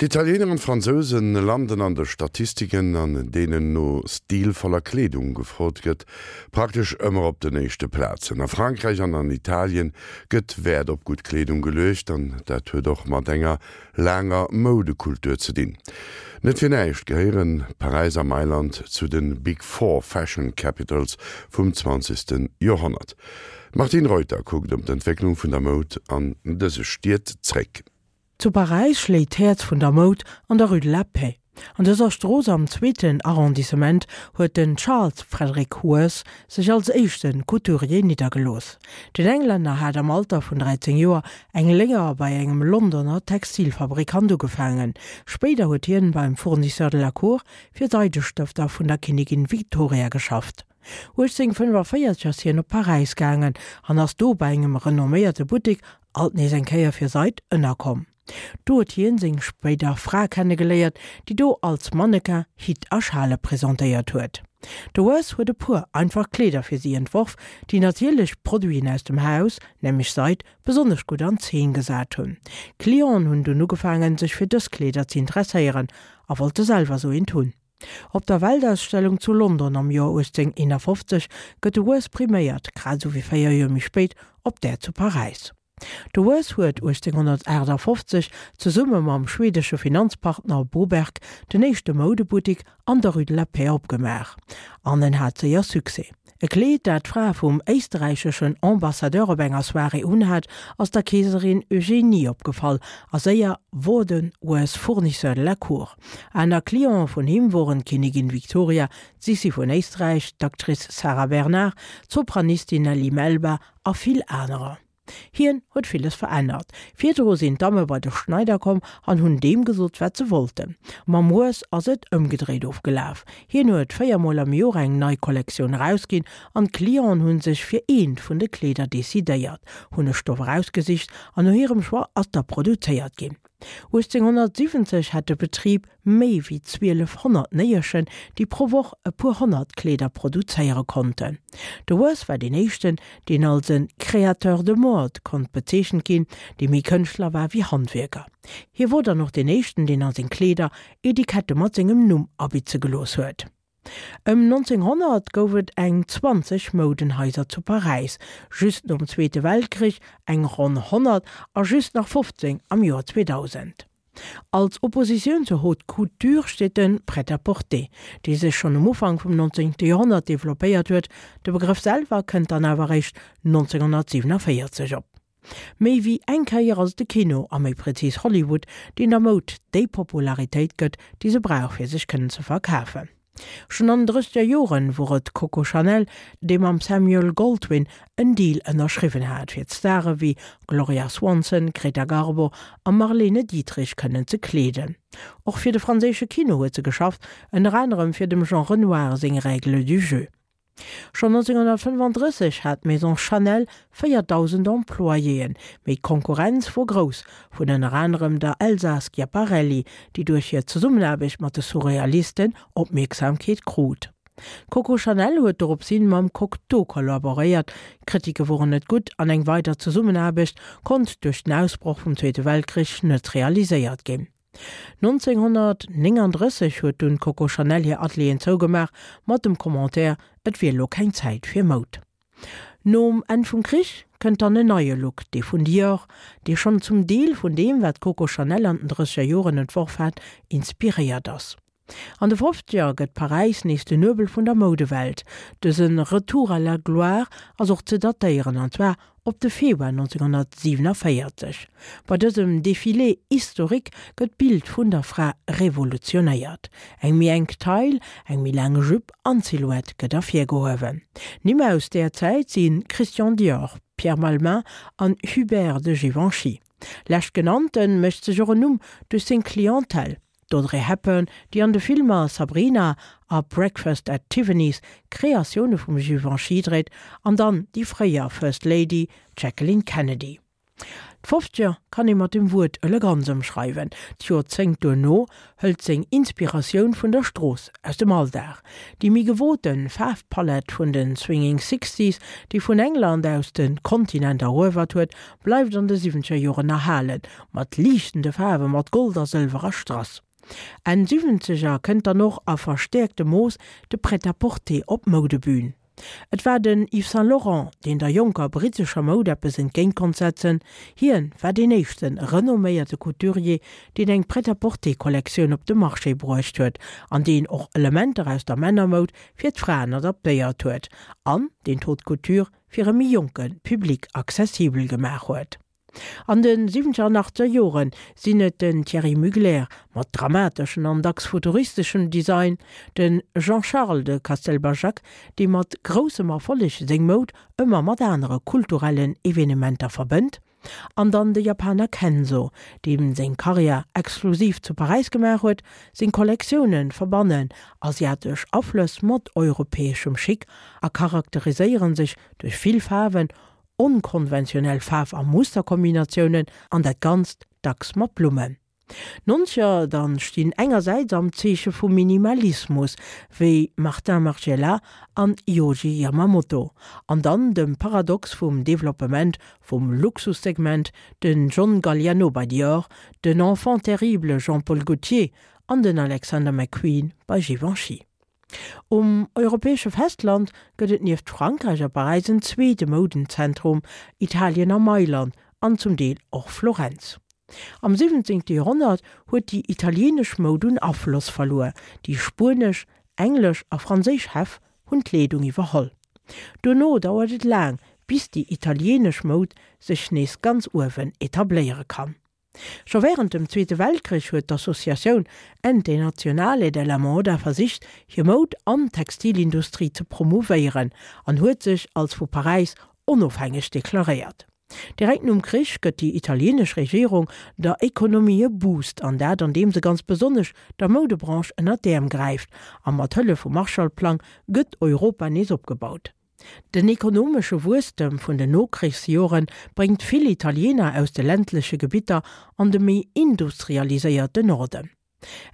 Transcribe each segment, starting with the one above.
D'Italiener an d'Fransouse landen an de Statistiken, an deenen no stilvoller Kleedung gefrot gëtt, praktesch ëmmer op den éischte Plazen. A Frankräich an an Italien gëtt Wäert op gutt Kleedung geluecht an dat huet och mat enger laanger Moudekultur ze dinn. Net fir näischt gehéiere Paräis a Mailand zu de Big Four Fashion Capitals vum zwanzegste Joerhonnert. D'Martine Reuter kuckt op d'Entwécklung vun der Moud an dëse Stied zréck. Zu Paräis schléit d'Häerz vun der Moud an der Rue de la Paix. An dëser Strooss am zweeten Arrondissement huet den Charles Frederick Worth sech als éischte Couturier niddergelooss. Den Englänner hat am Alter vun 13 Joer eng Léier bei engem Londoner Textilfabrikant ugefaangen. Spéider huet hien beim Fournisseur de la Cour fir Seidestëfter vun der Kinnigin Victoria geschafft. 1845 ass hien op Paräis gaangen an ass do bei engem renomméierte Buttek alt nees eng Kéier fir Seid ënnerkomm. Do huet hien seng spéider Fra kennegeléiert, déi do als Mannequin Hitt a Schale presentéiert huet. De Worth huet e puer einfach Kleeder fir si entworf, déi natierlech Produiten aus dem Haus, nämlech Seid, besonnesch gutt an Zeen gesat hunn. D'Clienten hunn dunn ugefaangen, sech fir dës Kleeder ze interesséieren a wollte selwer sou eent hunn. Op der Weltausstellung zu London am Joer 1851 gëtt de Worth priméiert, grad esou wéi 4 Joer méi spéit op där zu Paräis. De Worth huet 1858 zesumme mam schwedesche Finanzpartner Boberg den éischte Moudebuttik an der Rue de la Paix opgemaach an en hat séier Succès. E Kleed, dat d'Fra vum éisterräicheschen Ambassadeur op enger Soirée unhat, ass der Keeserin Eugénie opgefall a séier wor de Worth Fournisseur de la Cour. Aner Cliente vun him woren d'Kinnigin Victoria, d'Sissi vun Éisträich, d'Actrice Sarah Bernard, d'Sopranistin Nellie Melba a vill anerer. Hien huet villes verännert. Virdru sinn d'Damme bei de Schneider komm an hunn deem gesot, wat se wollten. Mam Worth ass et ëmgedréit ofgelaf. Hien huet 4 mol am Joer eng nei Kollektioun erausginn an d'Clienten hu sech fir eent vun de Kleeder decidéiert, hunn e Stoff erausgesicht an no hirem Choix ass da produzéiert ginn. 1870 hat de Betrib méi wéi 1200 Néierchen, déi pro Woch e puer 100 Kleeder produzéiere konnten. De Worth war deen éischten, deen als e Créateur de mode konnt bezeechent ginn, dee méi Kënschtler war wéi Handwierker. Hie wor dann och deen éischten, deen a seng Kleeder Etikette mat sengem Numm abitze gelooss huet. Ëm 1900 gouf et eng 20 Moudenhaiser zu Paräis, just nom Zweete Weltkrich eng ronn 100 a just nach 15 am Joer 2000. Als Oppositioun zur Haute Couture steet de Prêt-à-porter, dee sech schonn um Ufank vum 19. Joerhonnert developpéiert huet, de Begrëff selwer kënnt dann awer eréischt 1947 op. Méi wéi eng Kéier ass et de Kino, a méi prezis Hollywood, deen der Moud déi Popularitéit gëtt, déi se brauch fir sech kënnen ze verkafen. Schonn an den drësseger Joren wor et Coco Chanel, dee mam Samuel Goldwyn en Deal ënnerschriwwen hat, fir d'Stare wéi Gloria Swanson, Greta Garbo a Marlene Dietrich kënnen ze kleeden. Och fir de franséische Kino huet se geschafft, ënner anerem fir dem Jean Renoir seng Règles du jeu. Schonn 1935 hat d'Maison Chanel 4.000 Employéen, mee d'Konkurrenz wor grouss, vun ënner anerem der Elsa Schiaparelli, déi duerch hir Zesummenaarbecht mat de Surrealisten Opmierksamkeet krut. D'Coco Chanel huet doropshin mam Cocteau kollaboréiert, d'Kritike woren net gutt an eng weider Zesummenaarbecht konnt duerch den Ausbroch vum Zweete Weltkrich net realiséiert ginn. 1939 huet dunn d'Coco Chanel hir Atelieren zougemaach, mat dem Commentaire, et wier elo keng Zäit fir Moud. Nom Enn vum Krich kënnt dann en neie Look, dee vun Dior, dee schonn zum Deel vun deem, wat d'Coco Chanel an den drësseger Joren entworf hat, inspiréiert ass. An de Fofzeger gëtt Paräis nees den Nuebel vun der Moudewelt. Dëse Retour à la gloire ass och ze datéieren, an zwar op de Februar 1947. Bei dësem Défilé historique gëtt d'Bild vun der Fra revolutionéiert. Eng méi enk Taille, eng méi laang Jupe an d'Silhouette gëtt ervirgehuewen. Nimm aus där Zäit si Christian Dior, Pierre Balmain an Hubert de Givenchy. Leschtgenannte mécht sech och en Numm duerch seng Clientèle. D'Audrey Hepburn, déi an de Filmer Sabrina a Breakfast at Tiffany's Kreatioune vum Givenchy dréit, an dann déi fréier First Lady, d'Jacqueline Kennedy. D'Fofzeger kann ee mat dem Wuert Eleganz ëmschreiwen. D'Joerzéngt duerno hëlt seng Inspiratioun vun der Strooss, aus dem Alldag. Déi méi gewote Faarfpalett vun de Swinging Sixties, déi vun England aus de Kontinent eruewert huet, bleift an de siwwenzeger Joren erhalen, mat liichtende Faarwe mat Gold a Sëlwer a Strass. Enn Siwwenzeger kënnt dann och a verstäerktem Mooss de Prêt-à-porter op d'Moudebün. Et war den Yves Saint Laurent, deen der jonker brittescher Moud eppes entgéint konnt setzen. Hien war deen éischte renomméierte Couturier, deen eng Prêt-à-porter-Kollektioun op de Marché bruecht huet an deen och Elementer aus der Männermoud fir d'Fraen adaptéiert huet an deen d'Haute Couture fir e méi jonke Public accessibel gemaach huet. An de siwwenzeger an achtzeger Jore sinn et den Thierry Mugler mat dramateschen an dacks futuristeschem Design, de Jean-Charles de Castelbajac, dee mat groussem Erfolleg seng Moud ëmmer mat anere kulturellen Evenementer verbënnt, an dann de Japaner Kenzo, deem seng Karriär exklusiv zu Paräis gemaach huet. Seng Kollektioune verbannen asiatesch Aflëss mat europäeschem Chic a charakteriséiere sech duerch vill Faarwen, Onkonventionell Faarf a Musterkombinatiounen an dat Ganzt dacks mat Blummen. D'Nonzeger dann stinn engersäits am Zeeche vum Minimalismus, wéi Martin Margiela an Yohji Yamamoto, an dann dem Paradox vum Developpement vum Luxussegment, den John Galliano bei Dior, den Enfant terrible Jean-Paul Gaultier an den Alexander McQueen bei Givenchy. Um europäesche Festland gëtt et nieft Frankräich a Paräis en zweete Moudenzentrum, Italien a Mailand an zum Deel och Florenz. Am 17. Joerhonnert huet déi italieenesch Moud un Afloss verluer, déi spuenesch, englesch a franséisch Häff hunn d'Leedung iwwerholl. Duerno dauert et laang, bis déi italieenesch Moud sech nees ganz uewen etabléiere kann. Scho wärend dem Zweete Weltkrich huet d'Associatioun Ente Nazionale della Moda versicht, hir Moud an Textilindustrie ze promouvéieren an huet sech als vu Paräis onofhängeg deklaréiert. Direkt nom Krich gëtt déi italieenesch Regierung der Ekonomie e Boost, an dat andeem se ganz besonnesch der Moudebranche ënner d'Äerm gräift a mat Hëllef vum Marshallplang gëtt Europa nees opgebaut. Den ekonomesche Wuesstem vun den Nokrichsjore bréngt vill Italiener aus de ländleche Gebitter an de méi industrialiséierte Norden.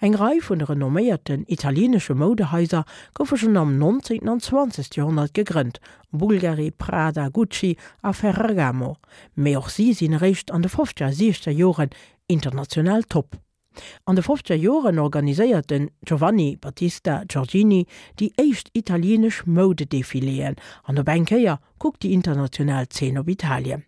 Eng Rei vun de renomméierten italienesche Moudehaiser goufe schonn am 19. an 20. Joerhonnert gegrënnt, Bulgari, Prada, Gucci a Ferragamo, mee och si sinn eréischt an de fofzeger a siechzeger Joren international top. An de fofzeger Joren organiséiert den Giovanni Battista Giorgini déi éischt italieenesch Moudedefiléen an op eng Kéier kuckt déi international Zeen op Italien.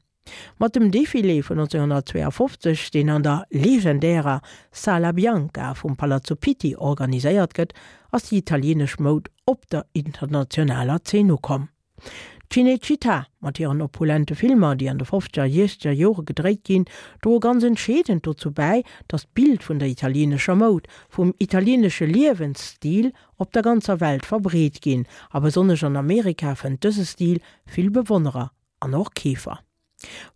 Mat dem Defilé vun 1952, deen an der legendärer Sala Bianca vum Palazzo Pitti organiséiert gëtt, ass déi italieenesch Moud op der internationaler Zeen ukomm. D'Cinecittà mat hiren opulente Filmer, déi an de fofzeger a siechzeger Jore gedréit ginn, droe ganz entscheedend dozou bäi, datt d'Bild vun der italieenescher Moud, vum italieenesche Liewensstil op der ganzer Welt verbreet ginn, a besonnesch an Amerika fënnt dëse Stil vill Bewonnerer an och Keefer.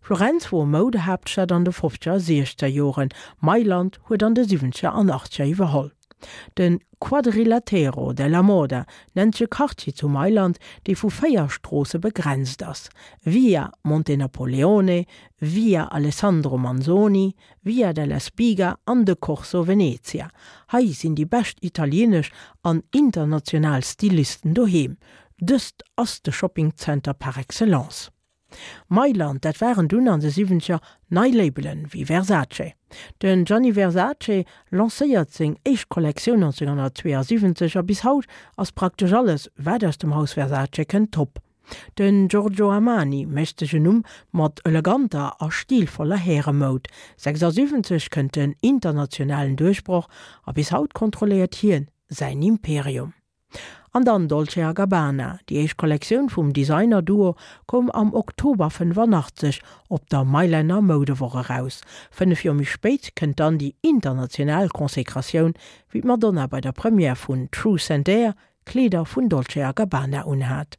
Florenz wor Moudehaaptstad an de fofzeger a siechzeger Joren, Mailand huet an de siwwenzeger an achtzeger iwwerholl. De Quadrilatero della Moda nennt sech e Quartier zu Mailand, dee vu 4 Stroosse begrenzt ass, Via Montenapoleone, Via Alessandro Manzoni, Via della Spiga an de Corso Venezia. Hei sinn déi bescht italieenesch an international Stylisten doheem. Dëst ass de Shoppingzenter par excellence. Mailand, dat waren dunn an de siwwenzeger nei Labelen wéi Versace. Den Gianni Versace lancéiert seng éischt Kollektioun 1972 a bis haut ass praktesch alles wat aus dem Haus Versace kënnt top. Den Giorgio Armani mécht sech en Numm mat eleganter a stilvoller Häremoud. 76 kënnt den internationalen Duerchbroch a bis haut kontrolléiert hien säin Imperium. An dann Dolce a Gabbana, déi éischt Kollektioun vum Designer-Duo koum am Oktober 85 op der Mailänner Moudewoch eraus. 5 Joer méi spéit kënnt dann déi international Konsekratioun, wéi d'Madonna bei der Première vun Truth and Dare Kleeder vun Dolce a Gabbana unhat.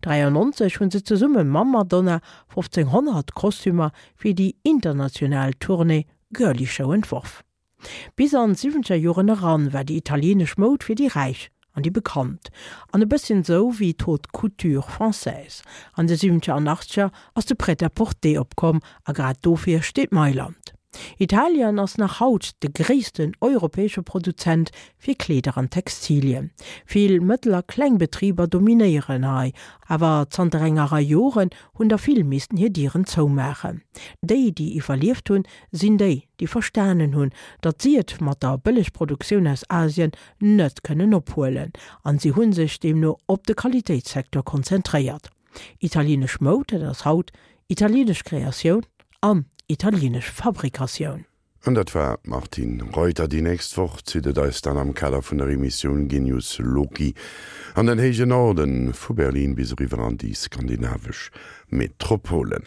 93 hu se zesumme mam Madonna 1500 Kostümer fir déi international Tournée Girlie Show entworf. Bis an d'siwwenzeger Joren eran war déi italienesch Moud fir déi Räich. An déi bekannt. An e bësschen sou wéi d'Haute Couture française. An de siwwenzeger an achtzeger ass de Prêt-à-porter opkomm a grad dofir steet Mailand. Italien ass nach haut de gréissten europäesche Produzent fir Kleeder an Textilien. Vill mëttel a kleng Betriber dominéieren hei, awer zanter enger Rei Joren hunn der vill missten hir Dieren zoumaachen. Déi, déi iwwerlieft hunn, sinn déi, déi verstanen hunn, datt si et mat der Bëllegproduktioun aus Asien net kënnen ophuelen, an si hu sech deemno op de Qualitéitssecteur konzentréiert. Italienesch Moud, dat ass haut italienesch Kreatioun an italienesch Fabrikatioun. An dat war d'Martine Reuter. Déi nächst Woch zitt et eis dann am Kader vun der Emissioun Genius Loci an den héije Norden, vu Berlin bis eriwwer an déi skandinavesch Metropolen.